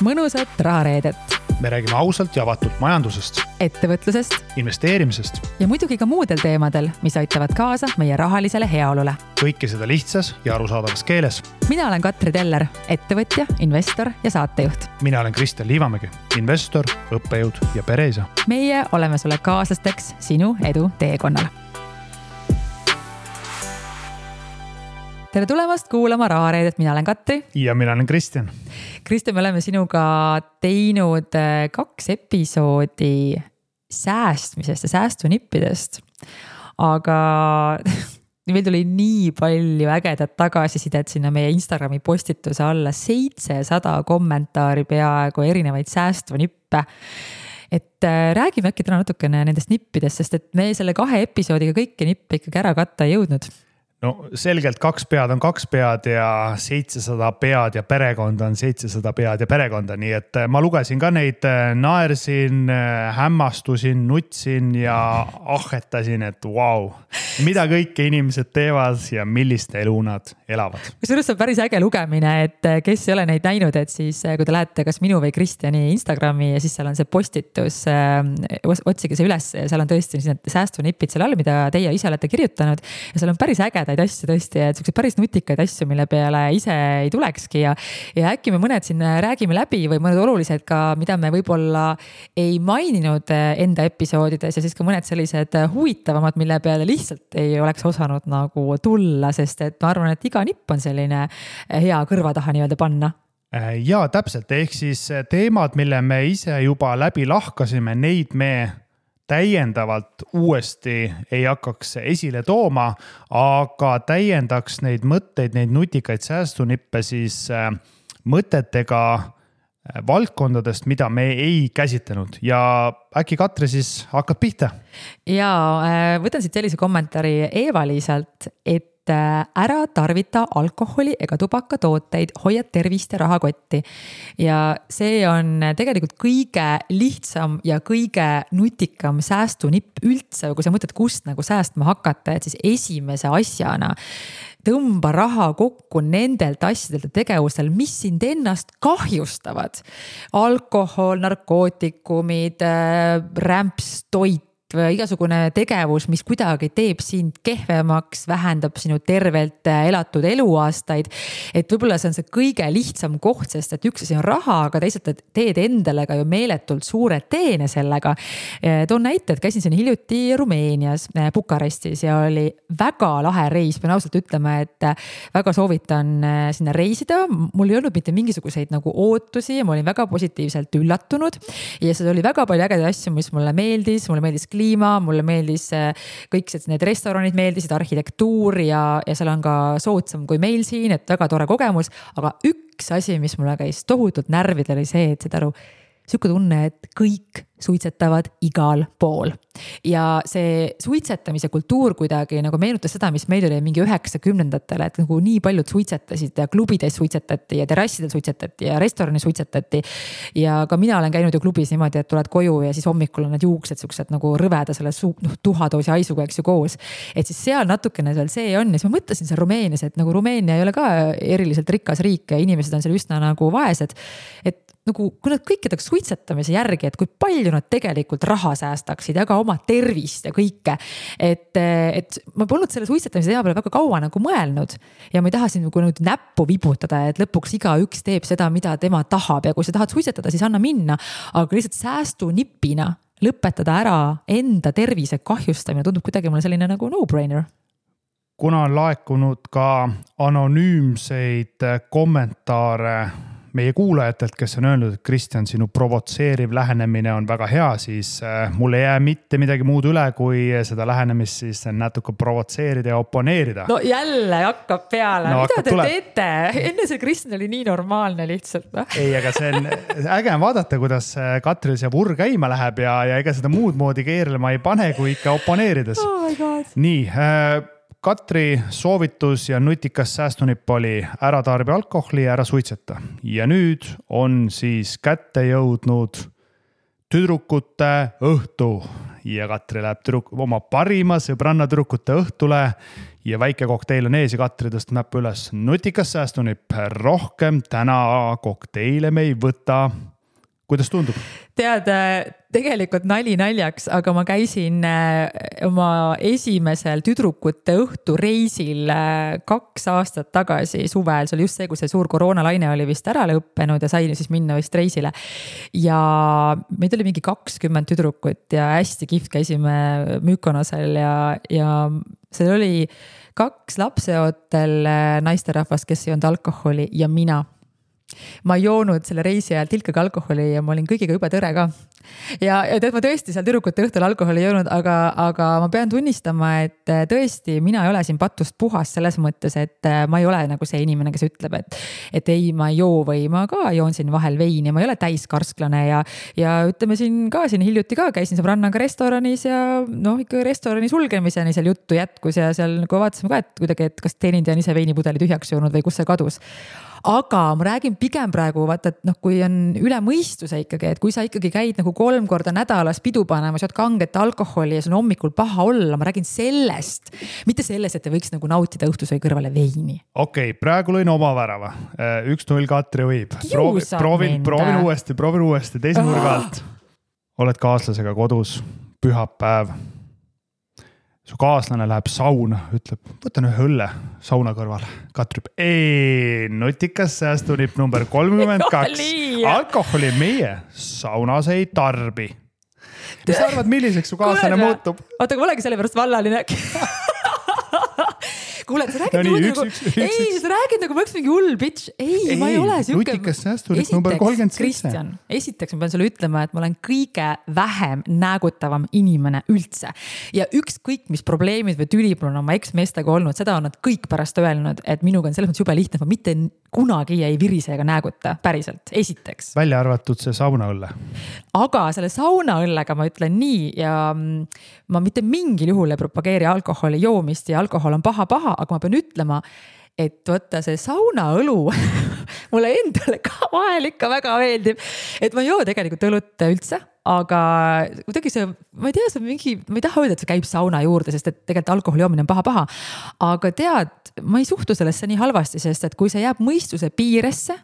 mõnusat rahareedet. Me räägime ausalt ja avatult majandusest, ettevõtlusest investeerimisest ja muidugi ka muudel teemadel, mis aitavad kaasa meie rahalisele heaolule. Kõike seda lihtsas ja arusaadavas keeles. Mina olen Katri Teller, ettevõtja, investor ja saatejuht. Mina olen Kristjan Liivamägi, investor, õppejõud ja pereisa. Meie oleme sulle kaaslasteks sinu edu teekonnal. Tere tulemast kuulama rahareedet, mina olen Katri. Ja mina olen Kristjan. Kristjan, me oleme sinuga teinud 2 episoodi säästmisest ja säästunippidest. Aga meil tuli nii palju ägedat tagasisidet sinna meie Instagrami postituse alla, 700 kommentaari peaaegu erinevaid säästvunippe. Et räägime äkki täna natukene nendest nippidest, sest et me selle 2 episoodiga kõiki nippe ikkagi ära katta ei jõudnud. No selgelt 2 pead on 2 pead ja 700 pead ja perekonda on 700 pead ja perekonda. Nii et ma lugesin ka neid, naersin, hämmastusin, nutsin ja ahetasin, et vau, mida kõike inimesed teevad ja millist elu nad elavad. Kusjuures on päris äge lugemine, et kes ei ole neid näinud, et siis kui te lähete kas minu või Kristjani Instagrami ja siis seal on see postitus, otsige see üles ja seal on tõesti need säästunippid seal all, mida teie ise olete kirjutanud ja seal on päris ägedad asju tõesti, et sellised päris nutikaid asju, mille peale ise ei tulekski ja äkki me mõned siin räägime läbi või mõned olulised ka, mida me võib-olla ei maininud enda episoodides ja siis ka mõned sellised huvitavamad, mille peale lihtsalt ei oleks osanud nagu tulla, sest et ma arvan, et iga nipp on selline hea kõrva taha nii-öelda panna. Ja täpselt, ehk siis teemad, mille me ise juba läbi lahkasime, neid me täiendavalt uuesti ei hakkaks esile tooma, aga täiendaks neid mõtteid, neid nutikaid säästunippe siis mõtetega valdkondadest, mida me ei käsitlenud. Ja äkki Katri siis hakkad pihta? Ja võtan siit sellise kommentaari Eva-Liisalt, et ära tarvita alkoholi ega tubakatooteid, hoia tervist ja rahakotti. Ja see on tegelikult kõige lihtsam ja kõige nutikam säästunipp üldse, kui sa mõtled, kust nagu säästma hakata, et siis esimese asjana tõmba raha kokku nendelt asjadelt ja tegevustel, mis sind ennast kahjustavad. Alkohol, narkootikumid, rämps, toit, igasugune tegevus, mis kuidagi teeb sind kehvemaks, vähendab sinu tervelt elatud eluaastaid. Et võib-olla see on see kõige lihtsam koht, sest et üks asi on raha, aga teisalt teed endale ka ju meeletult suure teene sellega. Toon näite, et käisin siin hiljuti Rumeenias, Bukarestis ja oli väga lahe reis. Pean ausalt ütlema, et väga soovitan sinna reisida. Mul ei olnud mitte mingisuguseid nagu ootusi ja ma olin väga positiivselt üllatunud. Ja see oli väga palju ägedaid asju, mis mulle meeldis kliima, mulle meeldis kõik need restoranid meeldisid, arhitektuur ja seal on ka soodsam kui meil siin, et väga tore kogemus, aga üks asi, mis mulle käis tohutult närvidel oli see, et seda aru, siuke tunne, et kõik suitsetavad igal pool. Ja see suitsetamise kultuur kuidagi nagu meenutas seda, mis meil oli mingi 90-ndatele, et nagu nii paljud suitsetasid ja klubides suitsetati ja terrassidel suitsetati ja restorani suitsetati. Ja ka mina olen käinud ju klubis niimoodi, et tuled koju ja siis hommikul on need juuksed siuksed nagu rõveda selle tuhadoosi haisuga, eks ju koos. Et siis seal natukene seal see on. Ja siis ma mõtlesin seal Rumeenias, et nagu Rumeenia ei ole ka eriliselt rikas riik ja inimesed on seal üsna nagu vaesed. Et nagu, kui nad kõik jätaks suitsetamise järgi, et kui palju nad tegelikult raha säästaksid ja ka oma tervist ja kõike. Et ma polnud selle suitsetamise teema peale väga kaua nagu mõelnud ja ma ei taha siin nagu näppu vibutada, et lõpuks iga üks teeb seda, mida tema tahab ja kui sa tahad suitsetada, siis anna minna, aga lihtsalt säästunippina lõpetada ära enda tervise kahjustamine tundub kuidagi mulle selline nagu no-brainer. Kuna on laekunud ka anonüümseid kommentaare meie kuulajatelt, kes on öelnud, et Kristjan, sinu provotseeriv lähenemine on väga hea, siis mul ei jää mitte midagi muud üle, kui seda lähenemist siis natuke provotseerida ja oponeerida. No jälle hakkab peale. No, mida te teete? Enne see Kristjan oli nii normaalne lihtsalt. Ei, aga see on äge vaadata, kuidas Katril see vurr käima läheb ja ega seda muud moodi keerlema ei pane, kui ikka oponeerides. Oh my God. Nii, Katri soovitus ja nutikas säästunipp oli ära tarbi alkoholi ja ära suitseta. Ja nüüd on siis kätte jõudnud tüdrukute õhtu. Ja Katri läheb oma parima sõbranna tüdrukute õhtule ja väike kokteil on ees ja Katri tõstab näppu üles. Nutikas säästunipp, rohkem täna kokteile me ei võta. Kuidas tundub? Tead, tegelikult nali naljaks, aga ma käisin oma esimesel tüdrukute õhtureisil 2 aastat tagasi suvel. See oli just see, kui see suur koroonalaine oli vist ära lõppenud ja sain siis minna vist reisile. Ja meid oli mingi 20 tüdrukut ja hästi kihvt käisime Mykonosel ja seal oli 2 lapseootel naisterahvast, kes ei olnud alkoholi ja mina. Ma ei joonud selle reisi ajal tilkagi alkoholi ja ma olin kõigiga juba tõre ka. Ja tead, ma tõesti seal tüdrukute õhtul alkoholi ei joonud, aga ma pean tunnistama, et tõesti mina ei ole siin patust puhas selles mõttes, et ma ei ole nagu see inimene, kes ütleb, et ei, ma ei joo või ma ka joon siin vahel veini, ma ei ole täiskarsklane ja ütleme siin hiljuti ka käisin sõbrannaga restoranis ja ikka restorani sulgemiseni seal juttu jätkus ja seal nagu vaatasime ka, et kuidagi, et kas teenindaja on ise veinipudeli tühjaks joonud või kus see kadus. Aga ma räägin pigem praegu, vaata, et kui on üle mõistuse ikkagi, et kui sa ikkagi käid nagu 3 korda nädalas pidu panema, sa oled kanget alkoholi ja sul on hommikul paha olla, ma räägin sellest, mitte sellest, et te võiks nagu nautida õhtusöö kõrvale veini. Okei, praegu lõin oma värava. 1-0 Katri võib. Proovin uuesti, teise nurga alt. Oled kaaslasega kodus, pühapäev. Su kaaslane läheb sauna, ütleb, võtan ühe õlle sauna kõrval. Katri ütleb, nutikas säästunipp number 32. Alkoholi meie saunas ei tarbi. Mis sa arvad, milliseks su kaaslane muutub? Oota, kui olegi selle pärast vallaline. Kuule, sa räägid nagu ma oleks mingi hull bitch. Ei, ma ei ole siuke. Nutikas säästunipp number 37. Kristjan, esiteks ma pean sulle ütlema, et ma olen kõige vähem näägutavam inimene üldse. Ja ükskõik, mis probleemid või tülib on oma eksmeestega olnud, seda on nad kõik pärast öelnud, et minuga on selles mõttes jube lihtne, et ma mitte kunagi ei virise ega nääguta, päriselt, esiteks. Välja arvatud see saunaõlle. Aga selle saunaõllega ma ütlen nii ja ma mitte mingil juhul ei propageeri alkoholi joomist ja alkohol on paha, aga ma pean ütlema, et võtta see saunaõlu mulle endale ka vahel ikka väga meeldib, et ma ei joo tegelikult õlut üldse, aga kuidagi see, ma ei tea, see mingi, ma ei taha öelda, et see käib sauna juurde, sest et tegelikult alkoholi joomine on paha, aga tead, ma ei suhtu sellesse nii halvasti, sest et kui see jääb mõistuse piiresse,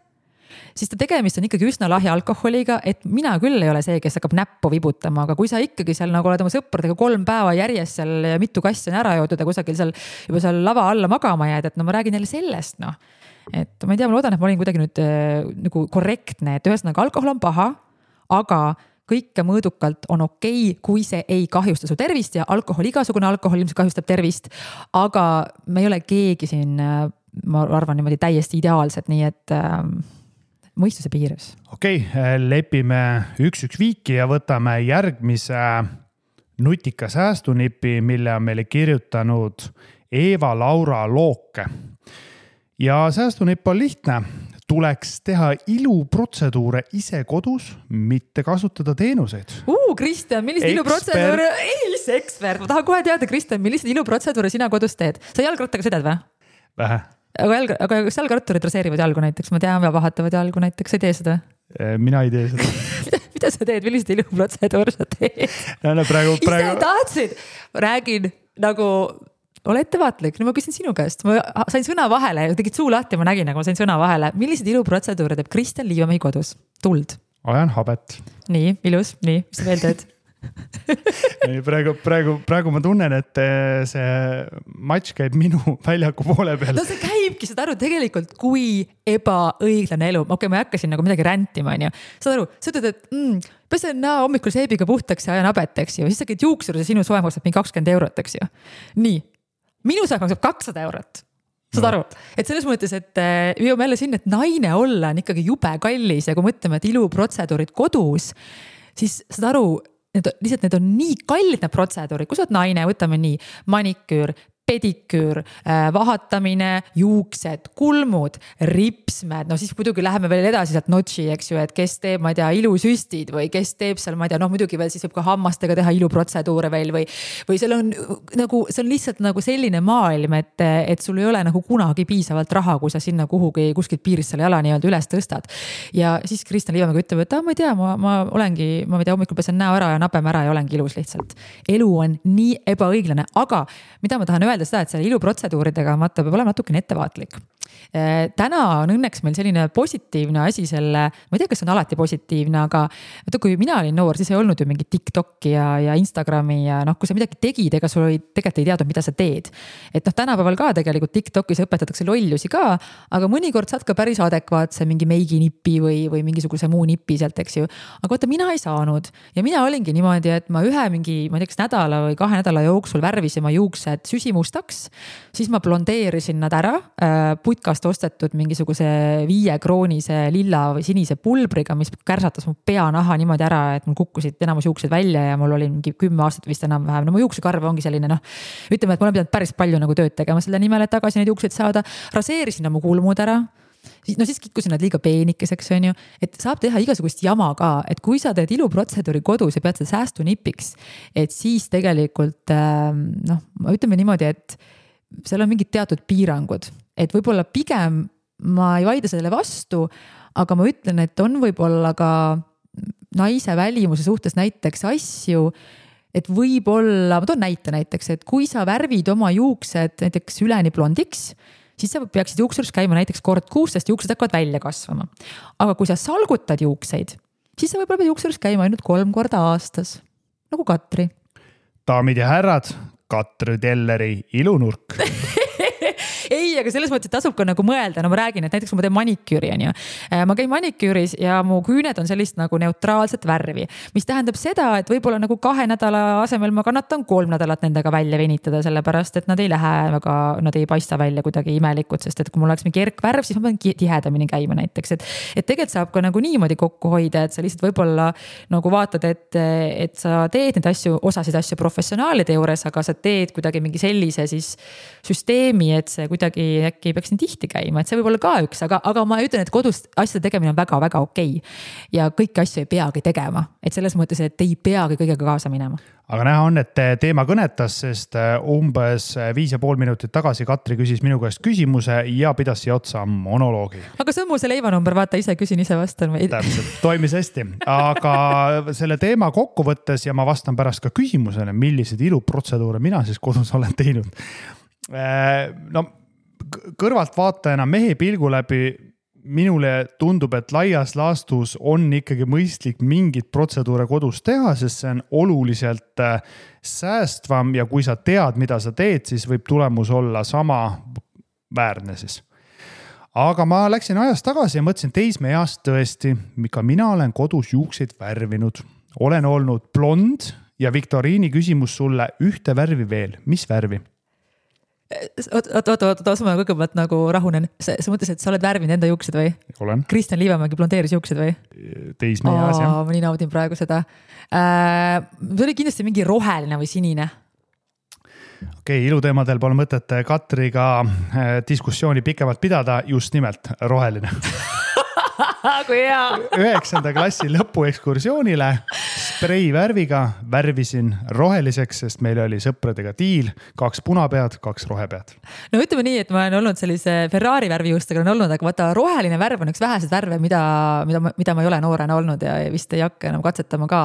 siis ta tegemist on ikkagi üsna lahja alkoholiga, et mina küll ei ole see, kes hakkab näppu vibutama, aga kui sa ikkagi seal nagu oled oma sõpradega 3 päeva järjest seal ja mitu kassi on ära joodud ja kusagil seal juba seal lava alla magama jääd, et ma räägin jälle sellest, et ma ei tea, ma loodan, et ma olin kuidagi nüüd nagu korrektne, et ühesõnaga alkohol on paha, aga kõike mõõdukalt on okei, kui see ei kahjusta su tervist ja igasugune alkohol ilmselt kahjustab tervist, aga me ei ole keegi siin, ma arvan niimoodi täiesti ideaalsed, nii et mõistuse piires. Okei, lepime 1-1 viiki ja võtame järgmise nutika säästunipi, mille on meile kirjutanud Eva-Laura Looke. Ja säästunipp on lihtne. Tuleks teha iluprotseduure ise kodus, mitte kasutada teenuseid. Kristjan, millised iluprotseduure? Ei, see ekspert. Ma tahan kohe teada, Kristjan, millised iluprotseduure sina kodus teed? Sa jalgrattaga sõidad või? Vähe. Aga kas jalgratturid raseerivad jalgu näiteks? Ma tean, vahatavad jalgu näiteks. Sa ei tee seda? Mina ei tee seda. Mida sa teed? Millised iluprotseduur sa teed? Praegu... Ise tahtsid? Räägin nagu... Ole ettevaatlik. Ma küsin sinu käest. Ma sain sõna vahele. Tegid suu lahti, ma nägin, nagu ma sain sõna vahele. Millised iluprotseduure teeb Kristjan Liivamäe kodus? Tuld. Ajan habet. Nii, ilus. Nii, mis sa veel teed? praegu ma tunnen, et see matš käib minu väljaku poole peal. No see käibki, saad aru tegelikult, kui ebaõiglane elu. Okei, ma hakkasin nagu midagi räntima, on ju. Saad aru, sa ütled, et pesen hommikul seebiga puhtaks ja ajan habeteks ju. Siis sa käid juuksur ja sinu soe maksab mingi 20 €, eks ju. Nii, minu soe maksab 200 €. Saad aru, et selles mõttes, et jõuame jälle sinna, et naine olla on ikkagi jube kallis ja kui mõtleme, et iluprotseduurid kodus, siis saad aru, lihtsalt need on nii kallid need protseduurid, kui sa oled naine, võtame nii maniküür, pediküür, vahatamine, juuksed, kulmud, ripsmed, no siis muidugi läheme veel edasi sealt notši, eks ju, et kes teeb, ma ei tea, ilusüstid või kes teeb seal, ma ei tea, muidugi veel siis võib ka hammastega teha iluprotseduure veel või seal on nagu, see on lihtsalt nagu selline maailm, et sul ei ole nagu kunagi piisavalt raha, kui sa sinna kuskilt piirist selle jala nii-öelda üles tõstad. Ja siis Kristjan Liivamäe ütleb, et ma ei tea, ma olengi, ma ei tea, hommikul pesen näo ära ja napeme ära ja olengi ilus lihtsalt. Elu on nii ebaõiglane, aga mida ma tahan öelda, mõelda seda, et selle iluprotseduuridega vaata peab olema natukene ettevaatlik. Täna on õnneks meil selline positiivne asi selle, ma ei tea, kas on alati positiivne, aga vaata, kui mina olin noor, siis ei olnud ju mingi TikToki ja Instagrami ja kui sa midagi tegid, ega sul tegelikult ei teadnud, mida sa teed. Et tänapäeval ka tegelikult TikTokis õpetatakse lollusi ka, aga mõnikord saad ka päris adekvaatse mingi meiginipi või mingisuguse muu nipi sealt, eks ju. Aga vaata, mina ei saanud ja mina olingi niimoodi, et ma ühe mingi, ma ei tea, kas nädala või 2 nädala jooksul värvisin ma juuksed süsimustaks, siis ma blondeerisin nad ära, putkast ostetud mingisuguse 5-kroonise lilla või sinise pulbriga, mis kärsatas mu peanaha niimoodi ära, et mul kukkusid enamus juuksed välja ja mul oli mingi 10 aastat vist enam-vähem. No mu juuksekarv ongi selline, ütleme, et ma olen pidanud päris palju nagu tööd tegema selle nimel, et tagasi neid juukseid saada. Raseerisin mu kulmud ära. Siis kikkusin nad liiga peenikeseks, on ju, et saab teha igasugust jama ka, et kui sa teed iluprotseduuri kodus ja pead seda säästunipiks, et siis tegelikult, ütleme niimoodi, et seal on mingid teatud piirangud, et võib-olla pigem ma ei vaida sellele vastu, aga ma ütlen, et on võib-olla ka naise välimuse suhtes näiteks asju, et võib-olla, ma toon näiteks, et kui sa värvid oma juuksed näiteks üleni blondiks, siis sa peaksid juuksurus käima näiteks kord kuus, sest juuksed hakkavad välja kasvama. Aga kui sa salgutad juukseid, siis sa võib-olla pead juuksurus käima ainult 3 korda aastas, nagu Katri. Daamid ja härrad, Katri Telleri ilunurk. Ei, aga selles mõttes, et tasub ka nagu mõelda, ma räägin, et näiteks ma teen maniküüri, on ju. Ma käin maniküüris ja mu küüned on sellist nagu neutraalset värvi, mis tähendab seda, et võib-olla nagu 2 nädala asemel ma kannatan 3 nädalat nendega välja venitada, sellepärast, et nad ei lähe väga, nad ei paista välja kuidagi imelikud, sest et kui mul oleks mingi erkvärv, siis ma pean tihedamini käima näiteks, et tegelikult saab ka nagu niimoodi kokku hoida, et sa lihtsalt võib-olla nagu vaatad, et sa teed neid asju, osasid asju professionaalide juures, aga sa teed kuidagi mingi sellise siis süsteemi, et see kuidagi äkki ei peaks nii tihti käima, et see võib olla ka üks, aga ma ütlen, et kodus asjade tegemine on väga-väga okei. Ja kõiki asju ei peagi tegema, et selles mõttes, et ei peagi kõigega kaasa minema. Aga näha on, et teema kõnetas, sest umbes 5,5 minutit tagasi Katri küsis minu käest küsimuse ja pidas siia otsa monoloogi. Aga see on mu see leivanumber, vaata, ise küsin, ise vastan. Täpselt, toimis hästi. Aga selle teema kokku võttes ja ma vastan pärast ka küsimusele, millised iluprotseduure mina siis kodus olen teinud. Kõrvalt vaatajana mehe pilgu läbi minule tundub, et laias laastus on ikkagi mõistlik mingid protseduure kodus teha, sest see on oluliselt säästvam ja kui sa tead, mida sa teed, siis võib tulemus olla sama väärne siis. Aga ma läksin ajas tagasi ja mõtlesin teismeeast tõesti, ka mina olen kodus juukseid värvinud. Olen olnud blond ja Viktoriini küsimus sulle ühte värvi veel. Mis värvi? Oota, ma kõigepealt nagu rahunen. Sa mõtles, et sa oled värvinud enda juuksed või? Olen. Kristjan Liivamägi blondeeris juuksed või? Teismeeas, jah. Ma nii naudin praegu seda. See oli kindlasti mingi roheline või sinine. Okei, iluteemadel pole mõtet Katriga diskussiooni pikemalt pidada, just nimelt roheline. Kui hea. 9. klassi lõpuekskursioonile spreivärviga värvisin roheliseks, sest meil oli sõpradega diil, 2 punapead, 2 rohepead. No ütleme nii, et ma olen olnud sellise Ferrari värvijuustega on olnud, aga vaata roheline värv on üks vähesed värve, mida ma ei ole noorena olnud ja vist ei hakka enam katsetama ka,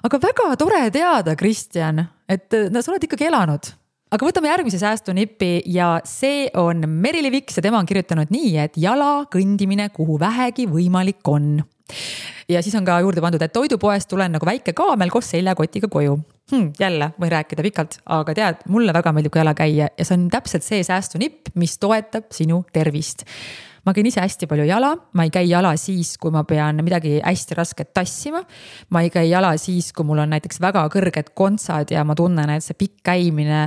aga väga tore teada, Kristjan, et sa oled ikkagi elanud. Aga võtame järgmise säästunipi ja see on Merili Viks ja tema on kirjutanud nii, et jala kõndimine, kuhu vähegi võimalik on. Ja siis on ka juurde pandud, et toidupoest tulen nagu väike kaamel koos seljakotiga koju. Jälle võin rääkida pikalt, aga tead, mulle väga meeldib ka jala käia ja see on täpselt see säästunipp, mis toetab sinu tervist. Ma käin ise hästi palju jala, ma ei käi jala siis, kui ma pean midagi hästi rasket tassima. Ma ei käi jala siis, kui mul on näiteks väga kõrged kontsad ja ma tunnen, et see pikk käimine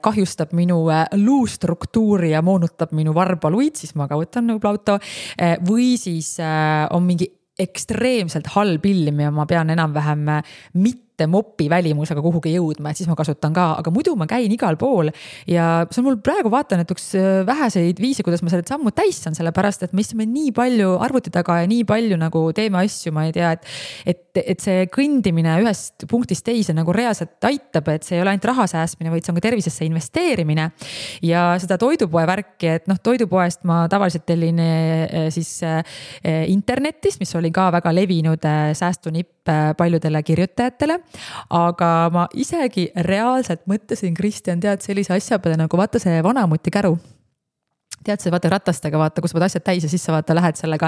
kahjustab minu luustruktuuri ja moonutab minu varbaluid, siis ma ka võtan nagu auto. Või siis on mingi ekstreemselt halb ilm ja ma pean enam-vähem mitte mopi välimusega kuhugi jõudma, et siis ma kasutan ka, aga muidu ma käin igal pool ja see on mul praegu vaatan, et üks väheseid viise, kuidas ma selle sammu täis saan, sellepärast, et me istume nii palju arvuti taga ja nii palju nagu teeme asju, ma ei tea, et see kõndimine ühest punktist teise nagu reaalselt aitab, et see ei ole ainult raha säästmine, vaid see on ka tervisesse investeerimine ja seda toidupoe värki, et toidupoest ma tavaliselt tellin siis internetist, mis oli ka väga levinud säästunipp paljudele kirjutajatele, aga ma isegi reaalselt mõtlesin, Kristjan, tead sellise asja peale nagu vaata see vanamuti käru. Tead see vaata ratastega, vaata, kus võid asjad täis ja sisse vaata lähed sellega.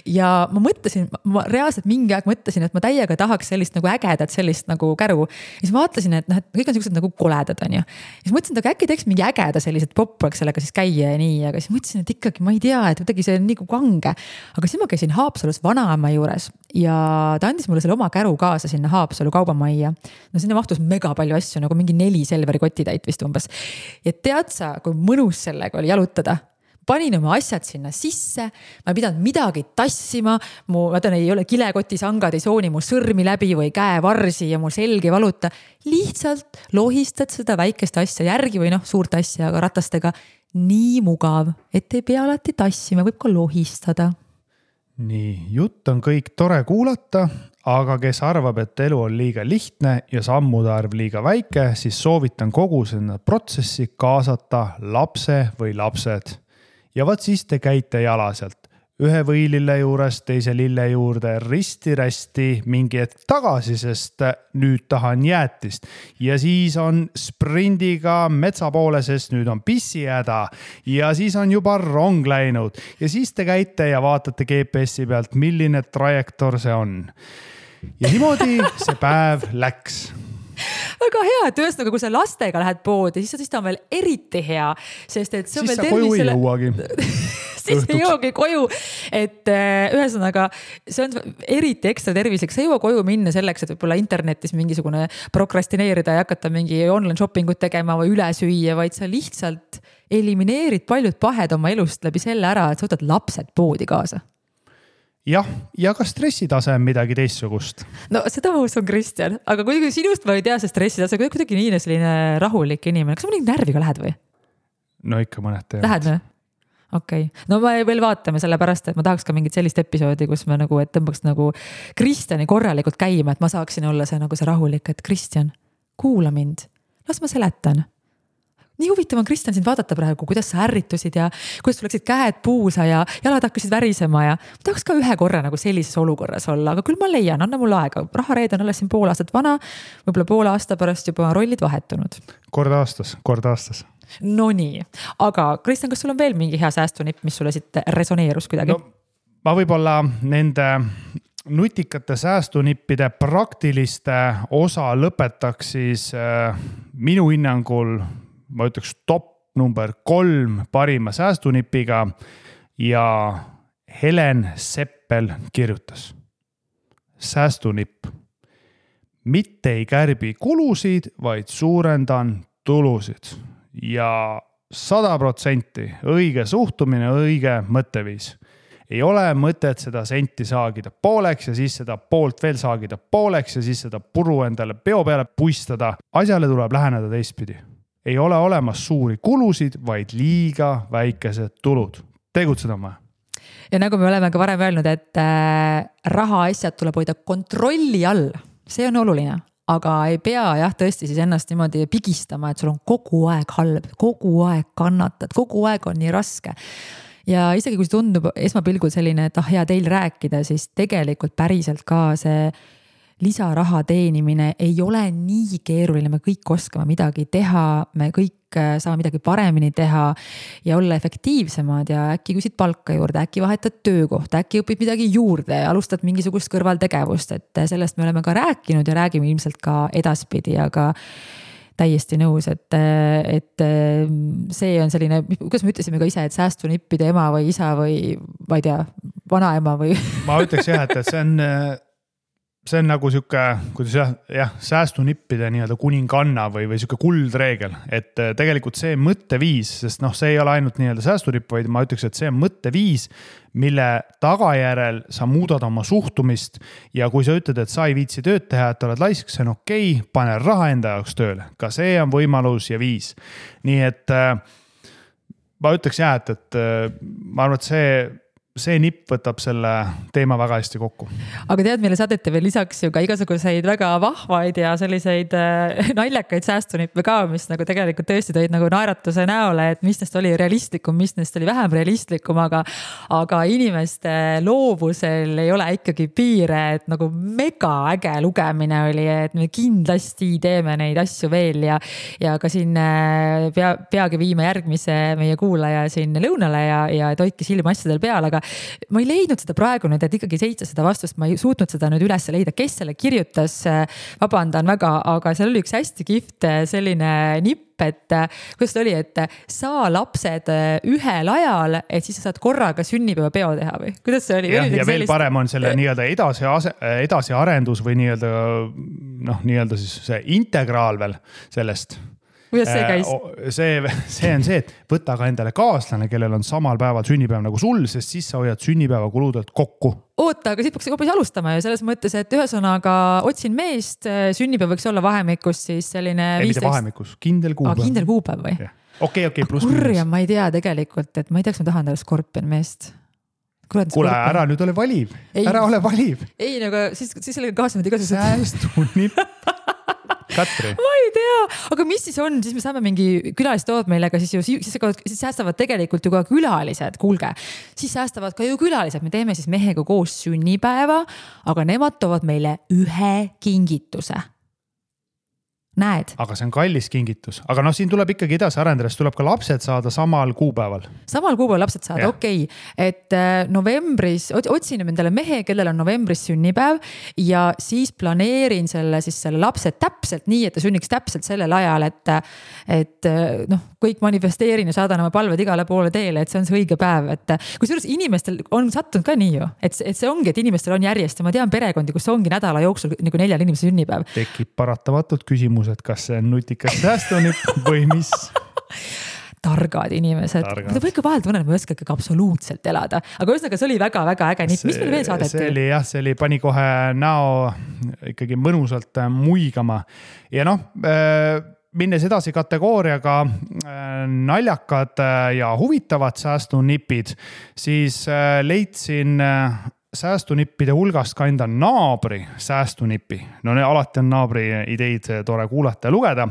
Ja ma mõtlesin, ma reaalselt mingi aeg mõtlesin, et ma täiega tahaks sellist nagu ägedat, sellist nagu käru. Ja siis ma vaatlesin, et kõik on sellised nagu koledad, on ju. Ja siis mõtlesin, et äkki teeks mingi ägeda sellised popraks sellega siis käia ja nii. Aga siis mõtlesin, et ikkagi ma ei tea, et kuidagi see on nii kange. Aga siis ma käisin Haapsalus vanaema juures ja ta andis mulle selle oma käru kaasa sinna Haapsalu kaubamajja. No sinna mahtus mega palju asju, nagu mingi 4 Selveri kotitäit vist umbes. Ja tead sa, kui mõnus sellega oli jalutada? Panin oma asjad sinna sisse, ma ei pidanud midagi tassima, ma tean, ei ole kilekotisangad, ei sooni mu sõrmi läbi või käevarsi ja mu selg ei valuta. Lihtsalt lohistad seda väikest asja järgi või suurt asja, aga ratastega nii mugav, et ei pea alati tassima, võib ka lohistada. Nii, jutt on kõik tore kuulata, aga kes arvab, et elu on liiga lihtne ja sammude arv liiga väike, siis soovitan kogu sinna protsessi kaasata lapse või lapsed. Ja vaat siis te käite jala sealt. Ühe võilille juures, teise lille juurde, risti-rästi mingi hetk tagasi, sest nüüd tahan jäätist. Ja siis on sprindiga metsa poole, sest nüüd on pissihäda. Ja siis on juba rong läinud. Ja siis te käite ja vaatate GPS-i pealt, milline trajektoor see on. Ja niimoodi see päev läks. Väga hea, et ühesõnaga, kui sa lastega lähed poodi, siis ta on veel eriti hea, sest et see on siis veel sa koju ei jõuagi. Siis ei jõuagi koju, et ühesõnaga, see on eriti ekstra tervislik, sa ei jõua koju minna selleks, et võib-olla internetis mingisugune prokrastineerida ja hakata mingi online shoppingut tegema või üle süüa, vaid sa lihtsalt elimineerid paljud pahed oma elust läbi selle ära, et sa võtad lapsed poodi kaasa. Jah, ja ka stressitase on midagi teistsugust. No seda ma usun, Kristjan, aga kui sinust ma ei tea see stressitase, kuidagi nii selline rahulik inimene, kas sa mõni närviga lähed või? No ikka mõned teevad. Lähed või? Okei. No ma veel vaatame selle pärast, et ma tahaks ka mingit sellist episoodi, kus me nagu, et tõmbaks nagu Kristjani korralikult käima, et ma saaksin olla see nagu see rahulik, et Kristjan, kuula mind, las ma seletan. Nii huvitav on, Kristjan, sind vaadata praegu, kuidas sa ärritusid ja kuidas sul läksid käed puusa ja jalad hakkasid värisema ja ma tahaks ka ühe korra nagu sellises olukorras olla, aga küll ma leian, anna mul aega. Rahareed on alles siin pool aastat vana, võib-olla pool aasta pärast juba rollid vahetunud. Kord aastas. No nii, aga Kristjan, kas sul on veel mingi hea säästunipp, mis sulle siit resoneerus kuidagi? No, ma võib-olla nende nutikate säästunippide praktiliste osa lõpetaks siis minu hinnangul ma ütleks top number 3 parima säästunipiga ja Helen Seppel kirjutas. Säästunipp. Mitte ei kärbi kulusid, vaid suurendan tulusid ja 100% õige suhtumine, õige mõtteviis. Ei ole mõtet seda senti saagida pooleks ja siis seda poolt veel saagida pooleks ja siis seda puru endale peo peale puistada. Asjale tuleb läheneda teistpidi. Ei ole olemas suuri kulusid, vaid liiga väikesed tulud. Tegutseda on vaja. Ja nagu me oleme ka varem öelnud, et rahaasjad tuleb hoida kontrolli all. See on oluline, aga ei pea tõesti siis ennast niimoodi pigistama, et sul on kogu aeg halb, kogu aeg kannatad, kogu aeg on nii raske. Ja isegi kui see tundub esmapilgul selline, et hea teil rääkida, siis tegelikult päriselt ka see lisaraha teenimine ei ole nii keeruline, me kõik oskame midagi teha, me kõik saame midagi paremini teha ja olla efektiivsemad ja äkki küsid palka juurde, äkki vahetad töökohta, äkki õpid midagi juurde ja alustad mingisugust kõrvaltegevust, et sellest me oleme ka rääkinud ja räägime ilmselt ka edaspidi, aga täiesti nõus, et see on selline, kuidas me ütlesime ka ise, et säästunippide ema või isa või ma ei tea, vanaema või ma ütleks jah, et see on nagu siuke, kuidas säästunippide nii-öelda kuninganna või siuke kuldreegel, et tegelikult see mõtteviis, sest see ei ole ainult nii-öelda säästunipp, vaid ma ütleks, et see on mõtteviis, mille tagajärel sa muudad oma suhtumist ja kui sa ütled, et sa ei viitsi tööd teha, et oled laisk, see on okei, pane raha enda jaoks tööle. Ka see on võimalus ja viis. Nii et ma ütleks et ma arvan, et see see nipp võtab selle teema väga hästi kokku. Aga tead, meile saadeti veel lisaks ju ka igasuguseid väga vahvaid ja selliseid naljakaid säästunippe ka, mis nagu tegelikult tõesti tõid nagu naeratuse näole, et mis neist oli realistlikum, mis neist oli vähem realistlikum, aga inimeste loovusel ei ole ikkagi piire, et nagu mega äge lugemine oli, et me kindlasti teeme neid asju veel ja ka siin peagi viime järgmise meie kuulaja siin lõunale ja et hoidke silma asjadel peal, aga ma ei leidnud seda praegu nüüd, et ikkagi 700 vastust, ma ei suutnud seda nüüd üles leida, kes selle kirjutas, vabandan väga, aga seal oli üks hästi kihvt selline nipp, et kuidas ta oli, et saa lapsed ühel ajal, et siis sa saad korraga sünnipäevapeo teha või? Kuidas see oli? Ja veel parem on selle nii-öelda edasiarendus või nii-öelda siis see integraal veel sellest. Kuidas see käis? See on see, et võta ka endale kaaslane, kellel on samal päeval sünnipäev nagu sul, sest siis sa hoiad sünnipäeva kuludelt kokku. Oota, aga siit peaks hoopis alustama ju selles mõttes, et ühesõnaga otsin meest, sünnipäev võiks olla vahemikus siis selline 15... Ei, mitte vahemikus, kindel kuupäev. Kindel kuupäev või? Okei, pluss. Kurja, ma ei tea tegelikult, et ma ei tea, kas ma tahan talle skorpion meest. Kuule, ära nüüd ole valiv. Ära ole valiv. Ei, aga siis sellega kaasnevad igasugused... Säästunipp. Katri. Ma ei tea, aga mis siis on, siis me saame mingi külalistoovad meilega, siis säästavad tegelikult ju ka külalised, kuulge, siis säästavad ka ju külalised, me teeme siis mehega koos sünnipäeva, aga nemad toovad meile ühe kingituse. Näed? Aga see on kallis kingitus. Aga siin tuleb ikkagi edasi arendades, tuleb ka lapsed saada samal kuupäeval. Samal kuupäeval lapsed saada, okei. Et novembris, otsin endale mehe, kellel on novembris sünnipäev ja siis planeerin selle lapse täpselt nii, et ta sünniks täpselt sellel ajal, et kõik manifesteerin ja saadan oma palved igale poole teele, et see on see õige päev. Et kusjuures inimestel on sattunud ka nii ju, et see ongi, et inimestel on järjest ja ma tean perekondi, kus ongi nädala jooksul nagu 4 inimese sünnipäev. Tekib paratamatult küsimus, et kas see on nutikas säästunipp või mis? Targad inimesed. Ma ikka vahel tunnen, et ma ei oska ikkagi absoluutselt elada. Aga ühesõnaga, see oli väga-väga äge nipp. Mis meil veel saadeti? See oli pani kohe näo ikkagi mõnusalt muigama. Ja minnes edasi kategooriaga naljakad ja huvitavad säästunipid, siis leidsin säästunippide hulgast ka enda naabri säästunipi. Alati on naabri ideid tore kuulata ja lugeda.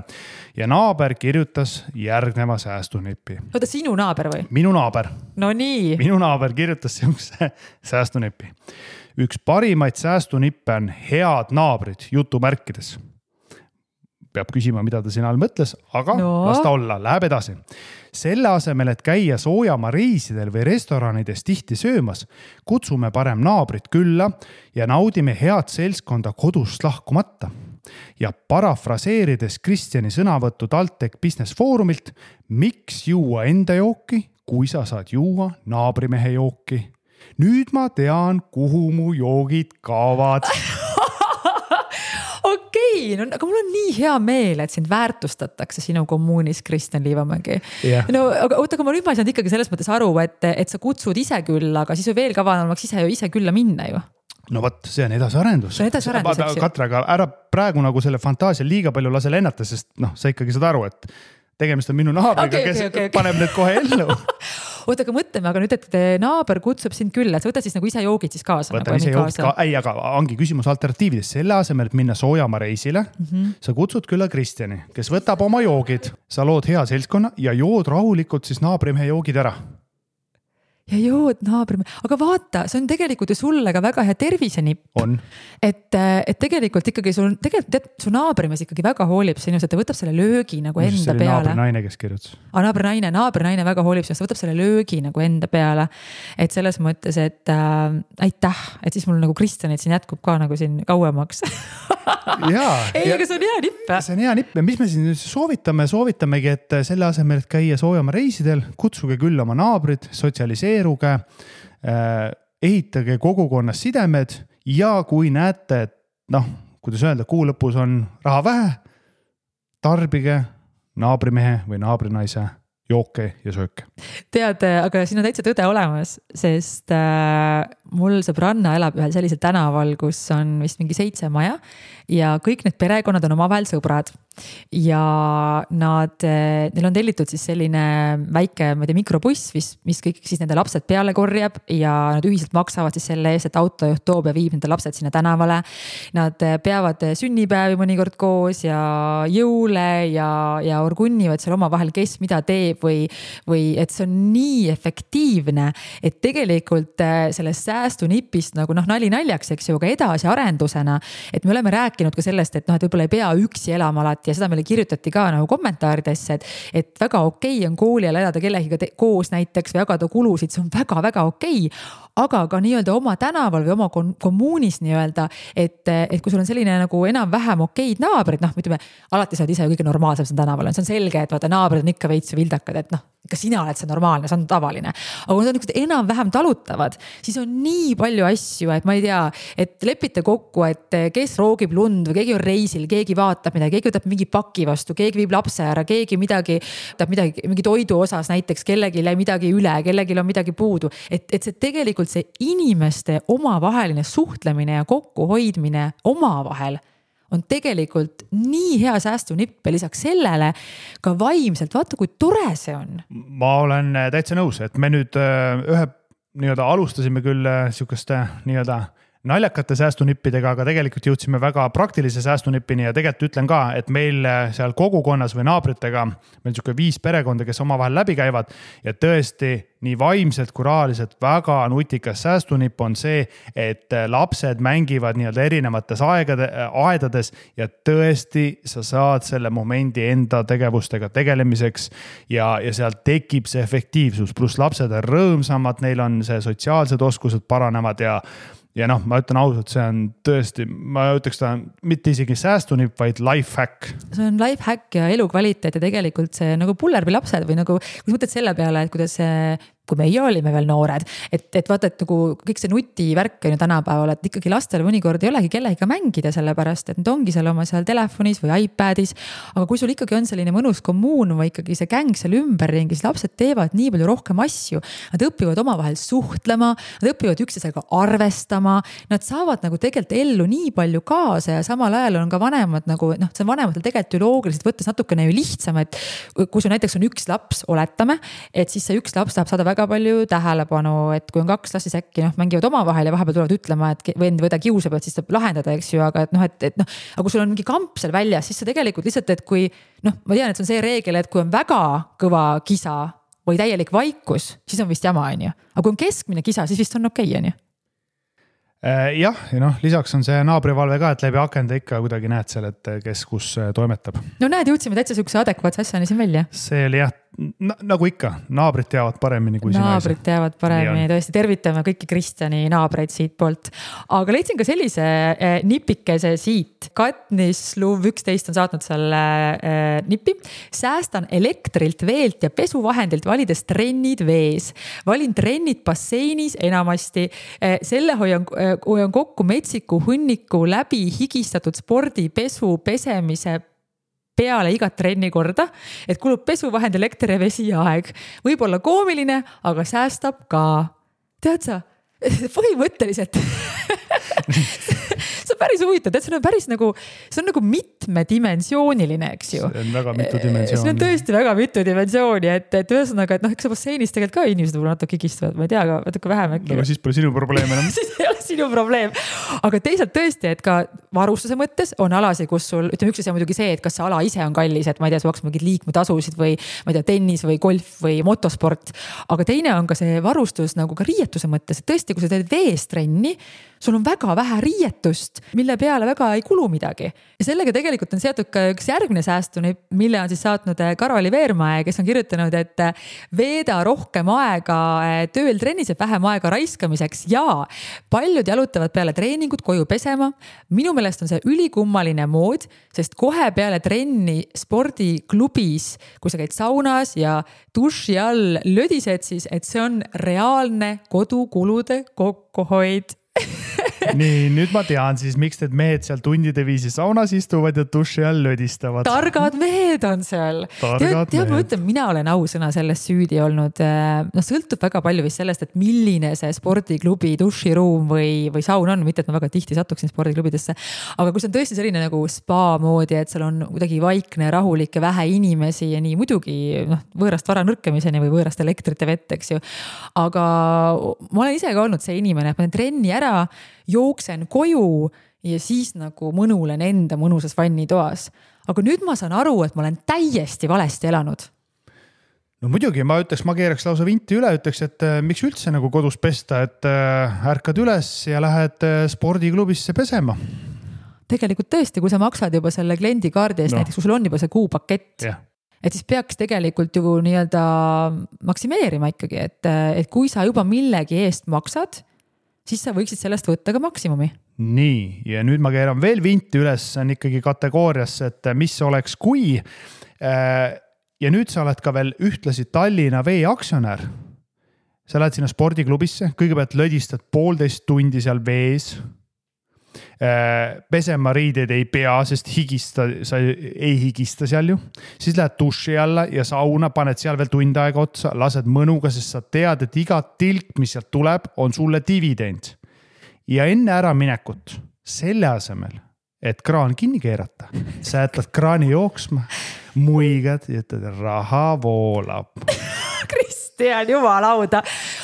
Ja naaber kirjutas järgneva säästunipi. Oota, sinu naaber või? Minu naaber. No nii. Minu naaber kirjutas sellise säästunipi. Üks parimaid säästunippe on head naabrid jutumärkides. Peab küsima, mida ta siin all mõtles, aga las ta olla, läheb edasi. Selle asemel, et käia soojamaa reisidel või restoranides tihti söömas, kutsume parem naabrit külla ja naudime head seltskonda kodust lahkumata. Ja parafraseerides Kristjani sõnavõttu TalTech Business Foorumilt, miks juua enda jooki, kui sa saad juua naabrimehe jooki? Nüüd ma tean, kuhu mu joogid kaavad. Okei, aga mul on nii hea meel, et sind väärtustatakse sinu kommuunis, Kristjan Liivamägi. Yeah. Aga ma nüüd ma ei saanud ikkagi selles mõttes aru, et sa kutsud ise külla, aga siis on veel kavanamaks ise külla minna ju. No võt, see on edasiarendus. See on edasiarendus, eks ju. Katra, aga ära praegu nagu selle fantaasia liiga palju lase lennata, sest sa ikkagi saad aru, et tegemist on minu naabriga, kes paneb need kohe ellu. Oota, aga mõtleme, aga nüüd, et naaber kutsub sind külla, et võta siis nagu ise joogid siis kaasa. Võtan ise joogid ka, aga ongi küsimus alternatiivides. Selle asemel, et minna soojamaa reisile, sa kutsud külla Kristjani, kes võtab oma joogid, sa lood hea seltskonna ja jood rahulikult siis naabrimehe joogid ära. Ja jood naabrimehe, aga vaata, see on tegelikult ju sulle ka väga hea tervisenipp. On. Et tegelikult ikkagi su naabrimees ikkagi väga hoolib sinust, et ta võtab selle löögi nagu enda peale. Naabrinaine, kes kirjutas. Naabrinaine väga hoolib sinust, võtab selle löögi nagu enda peale. Et selles mõttes, et aitäh, et siis mul nagu Kristjanit siin jätkub ka nagu siin kauemaks. Ei, aga see on hea nipp. See on hea nipp ja mis me siin soovitamegi, et selle asemel, et käia soojama reisidel, kutsuge küll oma naabrid, sotsialiseeruge, ehitage kogukonnas sidemed ja kui näete, et kuidas öelda, kuu lõpus on raha vähe, tarbige naabrimehe või naabrinaise jooke ja sööke. Tead, aga siin on täitsa tõde olemas, sest mul sõbranna elab ühel sellisel tänaval, kus on vist mingi 7 maja ja kõik need perekonnad on omavahel sõbrad. Ja neil on tellitud siis selline väike, ma ei tea, mikrobuss, mis kõik siis nende lapsed peale korjab ja nad ühiselt maksavad siis selle eest, et autojuht toob ja viib nende lapsed sinna tänavale. Nad peavad sünnipäevi mõnikord koos ja jõule ja orgunnivad seal omavahel, kes mida teeb või et see on nii efektiivne, et tegelikult sellest säästunipist nagu nali naljaks, eks ju, aga edasi arendusena, et me oleme rääkinud ka sellest, et võib-olla ei pea üksi elama alati ja seda meile kirjutati ka nagu kommentaaridesse, et väga okei on kooli ajal elada kellegiga koos näiteks või jagada kulusid, see on väga-väga okei, aga ka nii-öelda oma tänaval või oma kommuunis nii-öelda, et kui sul on selline nagu enam-vähem okeid naabrid, ütleme, alati sa oled ise kõige normaalsem siin tänaval, see on selge, et vaata naabrid on ikka veits vildakad, et ka sina oled see normaalne, see on tavaline. Aga kui nad on enam-vähem talutavad, siis on nii palju asju, et ma ei tea, et lepite kokku, et kes roogib lund või keegi on reisil, keegi vaatab midagi, keegi võtab mingi paki vastu, keegi viib lapse ära, keegi mingi toidu osas näiteks, kellegi midagi üle, kellegi on midagi puudu. Et see tegelikult see inimeste omavaheline suhtlemine ja kokkuhoidmine omavahel on tegelikult nii hea säästunipp ja lisaks sellele ka vaimselt, vaata kui tore see on. Ma olen täitsa nõus, et me nüüd alustasime küll sihukeste naljakate säästunippidega, aga tegelikult jõudsime väga praktilise säästunippini ja tegelikult ütlen ka, et meil seal kogukonnas või naabritega, meil on 5 perekonda, kes omavahel läbi käivad ja tõesti nii vaimselt kui rahaliselt väga nutikas säästunipp on see, et lapsed mängivad erinevates aedades ja tõesti sa saad selle momendi enda tegevustega tegelemiseks ja seal tekib see efektiivsus, pluss lapsed on rõõmsamad, neil on see sotsiaalsed oskused paranevad ja ma ütlen ausalt, see on tõesti, ma ütleks ta mitte isegi säästunipp, vaid life hack. See on life hack ja elukvaliteet ja tegelikult see nagu pullerbi lapsed või nagu, kui mõtled selle peale, et kuidas kui meie olime veel noored, et vaata, et nagu kõik see nutivärk on ju tänapäeval, et ikkagi lastel mõnikord ei olegi kellegiga mängida, sellepärast, et nad ongi seal oma seal telefonis või iPadis, aga kui sul ikkagi on selline mõnus kommuun või ikkagi see gäng seal ümberringi, siis lapsed teevad nii palju rohkem asju, nad õpivad omavahel suhtlema, nad õpivad üksteisega arvestama, nad saavad nagu tegelikult ellu nii palju kaasa ja samal ajal on ka vanemad nagu, see on vanematel tegelikult ju loogiliselt võttes natukene ju lihtsam, et kui sul näiteks on üks laps, oletame, et siis see üks laps tahab saada väga palju tähelepanu, et kui on 2 last, siis äkki mängivad omavahel ja vahepeal tulevad ütlema, et vend või ta kiusab, et siis saab lahendada, eks ju, aga aga kui sul on mingi kamp seal väljas, siis sa tegelikult lihtsalt, et kui ma tean, et see on see reegel, et kui on väga kõva kisa või täielik vaikus, siis on vist jama, on ju. Aga kui on keskmine kisa, siis vist on okei, on ju. Jah, ja lisaks on see naabrivalve ka, et läbi akende ikka kuidagi näed seal, et kes kus toimetab. No näed, jõudsime täitsa sihukese adekvaatse asjani siin välja. See oli jah, nagu ikka, naabrid teavad paremini kui sina. Naabrid teavad paremini, tõesti tervitame kõiki Kristjani naabreid siit poolt. Aga leidsin ka sellise nipikese siit. Katnis Luv 11 on saatnud selle nipi. Säästan elektrilt, veelt ja pesuvahendilt valides trennid vees. Valin trennid basseinis enamasti. Selle hoian kokku metsiku hunniku läbi higistatud spordi, pesu, pesemise peale igat trenni korda, et kulub pesuvahendi, elekter ja vesi ja aeg. Võib olla koomiline, aga säästab ka. Tead sa, põhimõtteliselt see on päris huvitav, see on päris nagu, see on nagu mitmedimensiooniline, eks ju. See on väga mitu dimensiooni. See on tõesti väga mitu dimensiooni, et ühesõnaga, et eks basseinis tegelikult ka inimesed võib natuke higistavad, ma ei tea, aga natuke vähem äkki. Aga siis pole sinu probleem enam. Siis ei ole sinu probleem. Aga teisalt tõesti, et ka varustuse mõttes on alasi, kus sul, ütleme, üks asi on muidugi see, et kas see ala ise on kallis, et ma ei tea, sa maksad mingid liikmetasusid või ma ei tea, tennis või golf või motosport. Aga teine on ka see varustus nagu ka riietuse mõttes, et tõesti, kui sa teed vees trenni, sul on väga vähe riietust, mille peale väga ei kulu midagi. Ja sellega tegelikult on seotud ka üks järgmine säästuni, mille on siis saatnud Karoli Veermäe, kes on kirjutanud, et veeda rohkem aega tööl trennis ja vähem aega raiskamiseks ja paljud jalutavad peale treeningut koju pesema. Minu meelest on see ülikummaline mood, sest kohe peale trenni spordiklubis, kui sa käid saunas ja duši all lödised, siis et see on reaalne kodukulude kokkuhoid. nii, nüüd ma tean siis, miks need mehed seal tundide viisi saunas istuvad ja duši all lödistavad. Targad mehed on seal. Tead, ma ütlen, mina olen ausõna sellest süüdi olnud. No sõltub väga palju vist sellest, et milline see spordiklubi duširuum või saun on, mitte et ma väga tihti satuksin spordiklubidesse. Aga kui see on tõesti selline nagu spa moodi, et seal on kuidagi vaikne, rahulik ja vähe inimesi ja nii muidugi võõrast vara nõrkemiseni või võõrast elektrit ja vett, eks ju. Aga ma olen ise ka olnud see inimene, et ma olen trenni ära, jooksen koju ja siis nagu mõnulen enda mõnusas vannitoas. Aga nüüd ma saan aru, et ma olen täiesti valesti elanud. No muidugi, ma keeraks lausa vinti üle, ütleks, et miks üldse nagu kodus pesta, et ärkad üles ja lähed spordiklubisse pesema. Tegelikult tõesti, kui sa maksad juba selle kliendikaardi eest, näiteks kui sul on juba see kuupakett, et siis peaks tegelikult ju nii-öelda maksimeerima ikkagi, et kui sa juba millegi eest maksad, siis sa võiksid sellest võtta ka maksimumi. Nii, ja nüüd ma keeran veel vinti üles, on ikkagi kategooriasse, et mis oleks kui. Ja nüüd sa oled ka veel ühtlasi Tallinna Vee aktsionär. Sa lähed sinna spordiklubisse, kõigepealt lödistad 1,5 tundi seal vees. Pesema riideid ei pea, sest sa ei higista seal ju. Siis lähed duši alla ja sauna, paned seal veel tund aega otsa, lased mõnuga, sest sa tead, et iga tilk, mis sealt tuleb, on sulle dividend. Ja enne ära minekut, selle asemel, et kraan kinni keerata, sa jätad kraani jooksma, muigad ja ütled, raha voolab. Kristjan, jumalauda.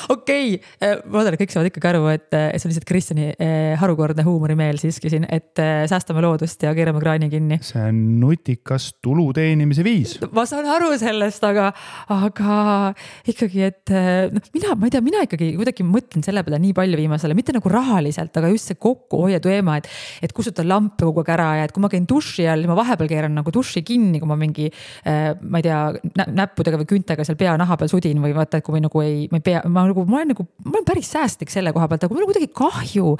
Okei, ma olen, kõik saavad ikkagi aru, et see on lihtsalt Kristjani harukordne huumorimeel siiski siin, et säästame loodust ja keerame kraani kinni. See on nutikas tulu teenimise viis. Ma saan aru sellest, aga ikkagi, et mina ikkagi kuidagi mõtlen selle peale nii palju viimasele, mitte nagu rahaliselt, aga just see kokkuhoiu teema, et kustutan lampe kogu aeg ära ja et kui ma käin duši all, ma vahepeal keeran nagu duši kinni, kui ma mingi, ma ei tea, näppudega või küntega seal pea naha peal sudin või vaata, et kui ma olen päris säästlik selle koha pealt, aga mul on kuidagi kahju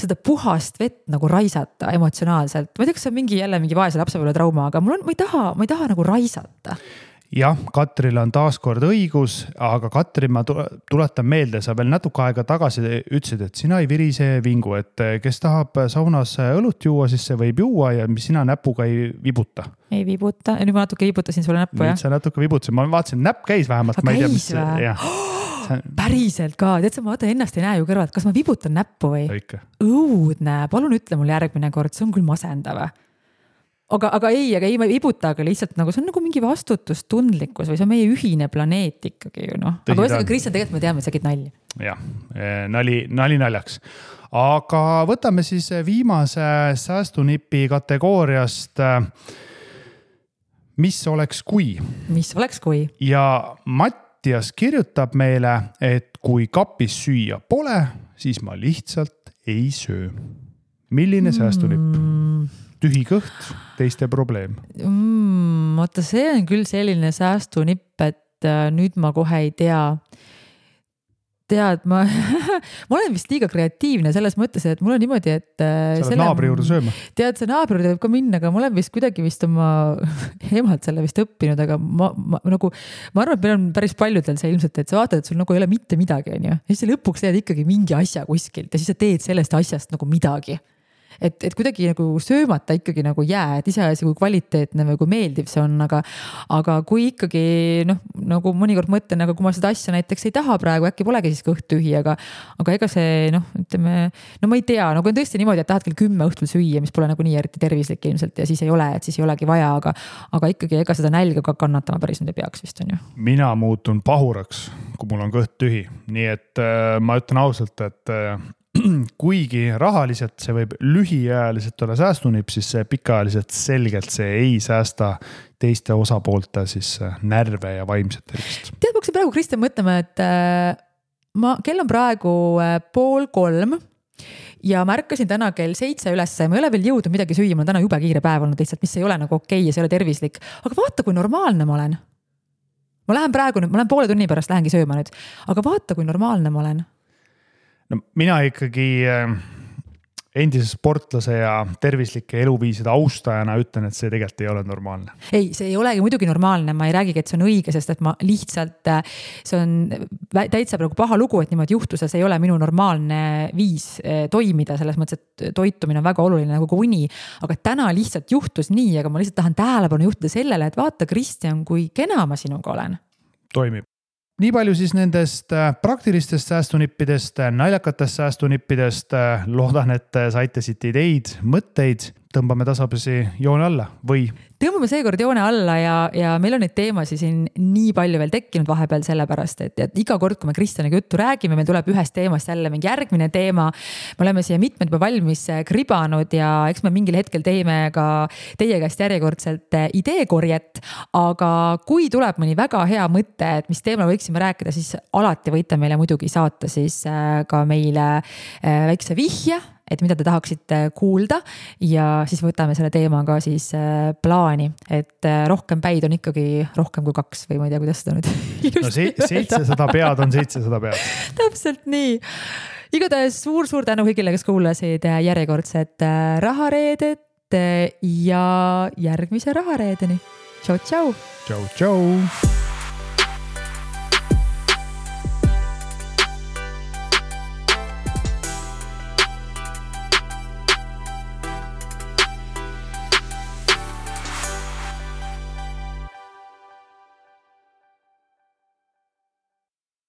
seda puhast vett nagu raisata emotsionaalselt. Ma ei tea, kas see on jälle mingi vaese lapsepõlve trauma, aga ma ei taha nagu raisata. Jah, Katril on taaskord õigus, aga Katri, ma tuletan meelde, sa veel natuke aega tagasi ütlesid, et sina ei virise vingu, et kes tahab saunas õlut juua, siis see võib juua ja sina näpuga ei vibuta. Ei vibuta, nüüd ma natuke vibutasin sulle näppu, jah? Nüüd sa natuke vibutasin, ma vaatasin, näpp käis vähemalt. Ma ei tea, mis päriselt ka, tead sa, ma ennast ei näe ju kõrvalt, kas ma vibutan näppu või? Õudne, palun ütle mul järgmine kord, see on küll masendav. Aga ei, ma ei vibuta, aga lihtsalt nagu see on nagu mingi vastutustundlikkus või see on meie ühine planeet ikkagi ju noh. Aga võsega Kristjan, tegelikult me teame, et sa käid nalja. Jah, nali naljaks. Aga võtame siis viimase säästunipi kategooriast. Mis oleks kui? Mis oleks kui? Ja Mattias kirjutab meile, et kui kapis süüa pole, siis ma lihtsalt ei söö. Milline säästunipp? Tühi kõht, teiste probleem. Oota, see on küll selline säästunipp, et nüüd ma kohe ei tea. Tead, ma olen vist liiga kreatiivne selles mõttes, et mul on niimoodi, et sa oled naabri juurde sööma. Tead, see naabri juurde võib ka minna, aga ma olen vist kuidagi oma emalt selle vist õppinud, aga ma arvan, et meil on päris paljudel see ilmselt, et sa vaatad, et sul nagu ei ole mitte midagi, on ju. Ja siis lõpuks teed ikkagi mingi asja kuskilt ja siis sa teed sellest asjast nagu midagi. Et kuidagi nagu söömata ikkagi nagu jää, et iseasi kui kvaliteetne või kui meeldiv see on, aga kui ikkagi nagu mõnikord mõtlen, aga kui ma seda asja näiteks ei taha praegu, äkki polegi siis kõht tühi, aga ega see ütleme, ma ei tea, nagu on tõesti niimoodi, et tahad kell 10 õhtul süüa, mis pole nagu nii eriti tervislik ilmselt ja siis ei ole, et siis ei olegi vaja, aga ikkagi ega seda nälga ka kannatama päris nüüd ei peaks vist on ju. Mina muutun pahuraks, kui mul on kõht tühi, nii et ma ütlen ausalt, et kuigi rahaliselt see võib lühiajaliselt olla säästunipp, siis see pikaajaliselt selgelt see ei säästa teiste osapoolte siis närve ja vaimset tervist. Tead, ma hakkasin praegu Kristjan mõtlema, et kell on praegu 2:30 ja ma ärkasin täna kell 7 üles, ma ei ole veel jõudnud midagi süüa, mul on täna jube kiire päev olnud lihtsalt, mis ei ole nagu okei ja see ei ole tervislik, aga vaata, kui normaalne ma olen. Ma lähen 1,5 tunni pärast lähengi sööma nüüd, aga vaata, kui normaalne ma olen. No mina ikkagi endise sportlase ja tervislike eluviiside austajana ütlen, et see tegelikult ei ole normaalne. Ei, see ei olegi muidugi normaalne, ma ei räägigi, et see on õige, sest et ma lihtsalt, see on täitsa praegu paha lugu, et niimoodi juhtus ja see ei ole minu normaalne viis toimida, selles mõttes, et toitumine on väga oluline nagu uni, aga täna lihtsalt juhtus nii, aga ma lihtsalt tahan tähelepanu juhtida sellele, et vaata, Kristjan, kui kena ma sinuga olen. Toimib. Nii palju siis nendest praktilistest säästunippidest, naljakatest säästunippidest. Loodan, et saite siit ideid, mõtteid. Tõmbame tasapisi joone alla või? Tõmbame seekord joone alla ja meil on neid teemasi siin nii palju veel tekkinud vahepeal sellepärast, et iga kord, kui me Kristjaniga juttu räägime, meil tuleb ühest teemast jälle mingi järgmine teema. Me oleme siia mitmed juba valmis kribanud ja eks me mingil hetkel teeme ka teie käest järjekordselt ideekorjet, aga kui tuleb mõni väga hea mõte, et mis teemal võiksime rääkida, siis alati võite meile muidugi saata siis ka meile väikse vihje, et mida te tahaksite kuulda ja siis võtame selle teemaga siis plaani, et rohkem päid on ikkagi rohkem kui 2 või ma ei tea, kuidas seda nüüd. No 700 pead on 700 pead. Täpselt nii. Igatahes suur tänu kõigile, kes kuulasid järjekordset rahareedet ja järgmise rahareedeni. Tšau. Tšau.